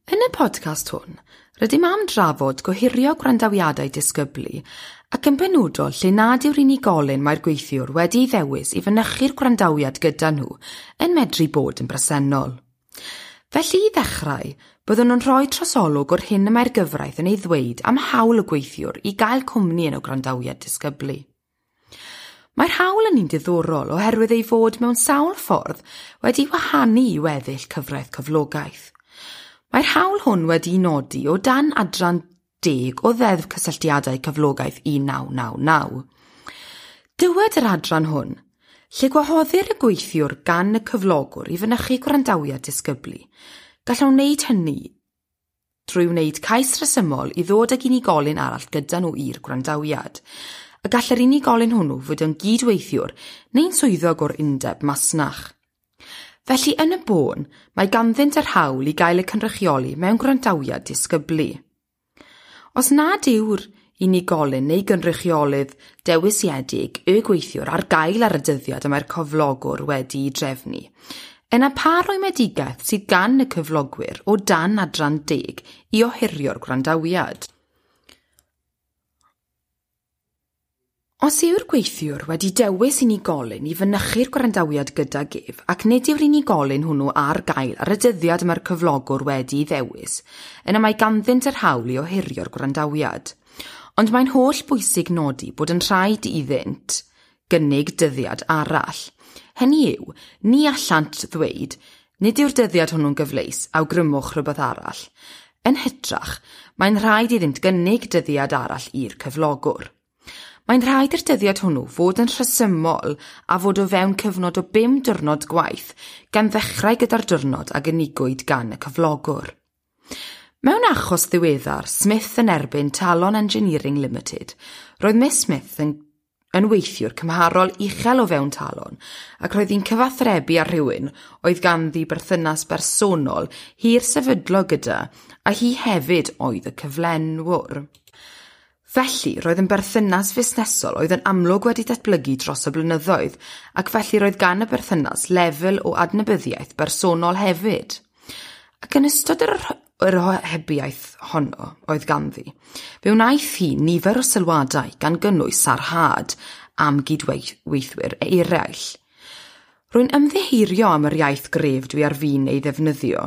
Yn y podcast hwn, rydym am drafod gohirio gwrandawiadau disgyblu ac yn benodol lle nad yw'r unigolyn mae'r gweithiwr wedi'i ddewis i fynychu'r gwrandawiad gyda nhw yn medru bod yn bresennol. Felly i ddechrau, byddwn yn rhoi trosolwg o'r hyn y mae'r gyfraith yn ei ddweud am hawl y gweithiwr i gael cwmni yn y gwrandawiad disgyblu. Mae'r hawl yn un diddorol oherwydd ei fod mewn sawl ffordd wedi wahanu i weddill cyfraith cyflogaeth. Mae'r hawl hwn wedi'i nodi o dan adran 10 o Ddeddf Cysylltiadau Cyflogaeth 1999. Dywed yr adran hwn, lle gwahoddir y gweithiwr gan y cyflogwr i fynychu gwrandawiad disgyblu, gallwn wneud hynny drwy wneud cais rhesymol i ddod ag unigolyn arall gyda nhw i'r gwrandawiad, a gall yr unigolyn hwnnw fod yn gydweithiwr neu'n swyddog o'r undeb masnach. Felly yn y bôn, mae ganddynt yr hawl i gael eu cynrychioli mewn gwrandawiad disgyblu. Os nad yw'r unigolyn neu gynrychiolydd dewisiedig y gweithiwr ar gael ar y dyddiad y mae'r cyflogwr wedi'i drefnu, yna pa rwymedigaeth sydd gan y cyflogwyr o dan adran 10 i ohirio'r gwrandawiad? Os yw'r gweithiwr wedi dewis unigolyn i fynychu'r gwrandawiad gydag ef ac nid yw'r unigolyn hwnnw ar gael ar y dyddiad mae'r cyflogwr wedi'i ddewis, yna mae ganddynt yr hawl i ohirio'r gwrandawiad. Ond mae'n holl bwysig nodi bod yn rhaid iddynt gynnig dyddiad arall. Hynny yw, ni allant ddweud, nid yw'r dyddiad hwnnw'n gyfleus, awgrymwch rhywbeth arall. Yn hytrach, mae'n rhaid iddynt gynnig dyddiad arall i'r cyflogwr. Mae'n rhaid i'r dyddiad hwnnw fod yn rhesymol a fod o fewn cyfnod o 5 diwrnod gwaith, gan ddechrau gyda'r diwrnod a gynigwyd gan y cyflogwr. Mewn achos ddiweddar, Smith yn erbyn Talon Engineering Limited, roedd Miss Smith yn weithiwr cymharol uchel o fewn Talon ac roedd hi'n cyfathrebu â rhywun oedd ganddi berthynas bersonol hir sefydlog gyda, a hi hefyd oedd y cyflenwr. Felly, roedd yn berthynas fusnesol oedd yn amlwg wedi datblygu dros y blynyddoedd, ac felly roedd gan y berthynas lefel o adnabyddiaeth bersonol hefyd. Ac yn ystod yr ohebiaeth honno oedd ganddi, fe wnaeth hi nifer o sylwadau gan gynnwys sarhad am gydweithwyr eraill. Rwy'n ymddiheurio am yr iaith gref dwi ar fin ei ddefnyddio,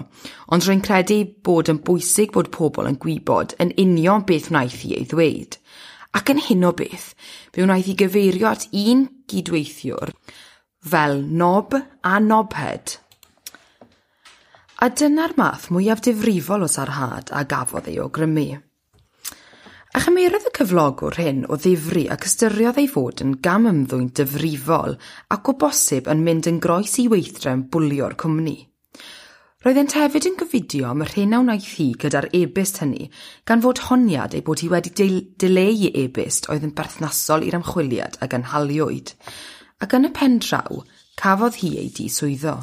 ond rwy'n credu bod yn bwysig bod pobl yn gwybod yn union beth wnaeth hi ei ddweud. Ac yn hyn o beth, fe wnaeth hi gyfeirio at un gydweithiwr fel knob a knobhead. A dyna'r math mwyaf difrifol o sarhad a gafodd ei awgrymu. A chymerodd y cyflogwr hyn o ddifri ac ystyriodd ei fod yn gamymddwyn difrifol ac o bosib yn mynd yn groes i weithdrefn bwlio'r cwmni. Roeddent hefyd yn gofidio am yr hyn a wnaeth hi gyda'r e-byst hynny, gan fod honiad ei bod hi wedi dileu e-byst oedd yn berthnasol i'r ymchwiliad a gynhaliwyd, ac yn y pen draw cafodd hi ei diswyddo.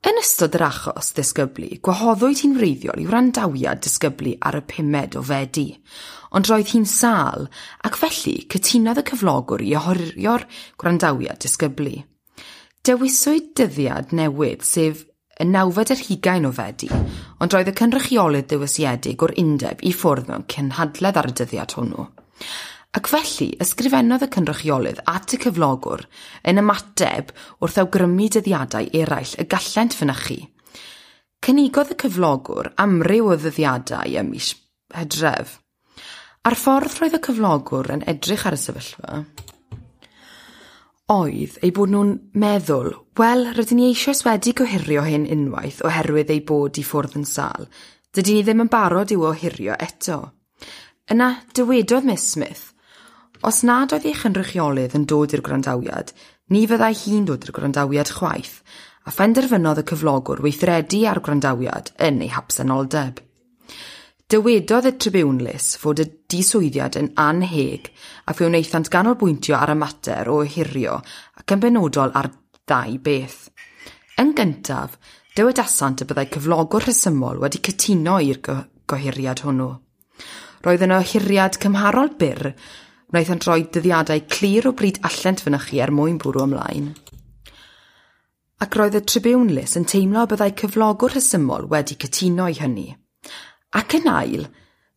Yn ystod yr achos ddisgyblu, gwahoddwyd hi'n wreiddiol i wrandawiad disgyblu ar y 5 o Fedi, ond roedd hi'n sâl ac felly cytunodd y cyflogwr i ohirio'r gwrandawiad disgyblu. Dewiswyd dyddiad newydd, sef y 29 o Fedi, ond roedd y cynrychiolydd dewisiedig o'r undeb i ffwrdd mewn cynhadledd ar y dyddiad hwnnw. Ac felly, ysgrifennodd y cynrychiolydd at y cyflogwr yn ymateb wrth awgrymu dyddiadau eraill y gallent fynychu. Cynigodd y cyflogwr amryw o ddyddiadau ym mis Hydref. A'r ffordd roedd y cyflogwr yn edrych ar y sefyllfa oedd ei bod nhw'n meddwl, wel, rydyn ni eisoes wedi gohirio hyn unwaith oherwydd ei bod i ffwrdd yn sâl. Dydyn ni ddim yn barod i'w ohirio eto. Yna, dywedodd Miss Smith, os nad oedd ei chynrychiolydd yn dod i'r gwrandawiad, ni fyddai hi'n dod i'r gwrandawiad chwaith, a phenderfynodd y cyflogwr weithredu ar gwrandawiad yn ei habsenoldeb. Dywedodd y tribiwnlys fod y diswyddiad yn annheg a fe wnaethant ganolbwyntio ar y mater o ohirio ac yn benodol ar ddau beth. Yn gyntaf, dywedasant y byddai cyflogwr rhesymol wedi cytuno i'r gohiriad hwnnw. Roedd yn ohiriad cymharol byr, wnaethant roi dyddiadau clir o bryd allent fynychu er mwyn bwrw ymlaen. Ac roedd y tribiwnlys yn teimlo y byddai cyflogwr rhesymol wedi cytuno i hynny. Ac yn ail,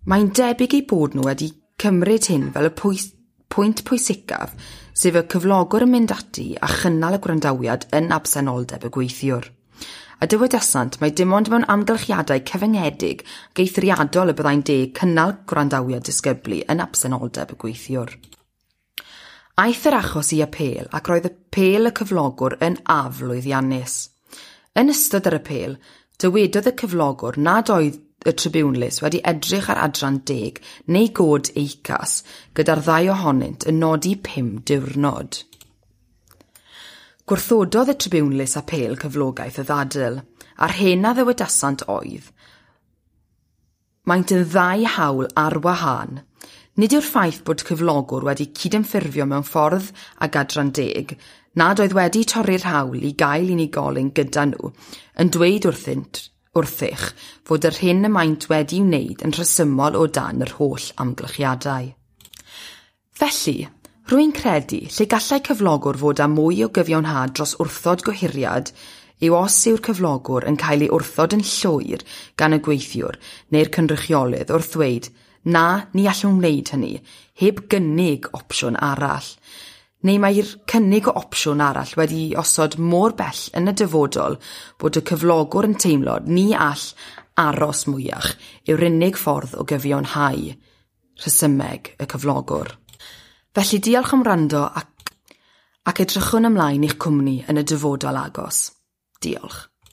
mae'n debyg eu bod nhw wedi cymryd hyn fel y pwynt pwysicaf, sef y cyflogwr yn mynd ati a chynnal y gwrandawiad yn absenoldeb y gweithiwr. A dywedasant mai dim ond mewn amgylchiadau cyfyngedig ac eithriadol y byddai'n deg cynnal gwrandawiad disgyblu yn absenoldeb y gweithiwr. Aeth yr achos i apêl ac roedd apêl y cyflogwr yn aflwyddiannus. Yn ystod yr apêl, dywedodd y cyflogwr nad oedd y tribiwnlys wedi edrych ar adran 10 neu god EICAS gyda'r ddau ohonynt yn nodi 5 diwrnod. Gwrthododd y tribiwnlys apêl cyflogaeth y ddadl, a'r hyn a ddywedasant oedd: Maent yn ddau hawl ar wahân. Nid yw'r ffaith bod cyflogwr wedi cydymffurfio mewn ffordd ag adran 10, nad oedd wedi torri'r hawl i gael unigolyn gyda nhw, yn dweud wrthych fod yr hyn y maent wedi'i wneud yn rhesymol o dan yr holl amgylchiadau. Felly, rwy'n credu lle gallai cyflogwr fod â mwy o gyfiawnhad dros wrthod gohiriad yw os yw'r cyflogwr yn cael ei wrthod yn llwyr gan y gweithiwr neu'r cynrychiolydd wrth ddweud na, ni allwn wneud hynny, heb gynnig opsiwn arall. Neu mae'r cynnig o opsiwn arall wedi osod mor bell yn y dyfodol bod y cyflogwr yn teimlo ni all aros mwyach yw'r unig ffordd o gyfiawnhau rhesymeg y cyflogwr. Felly diolch am wrando ac edrychwn ymlaen i'ch cwmni yn y dyfodol agos. Diolch.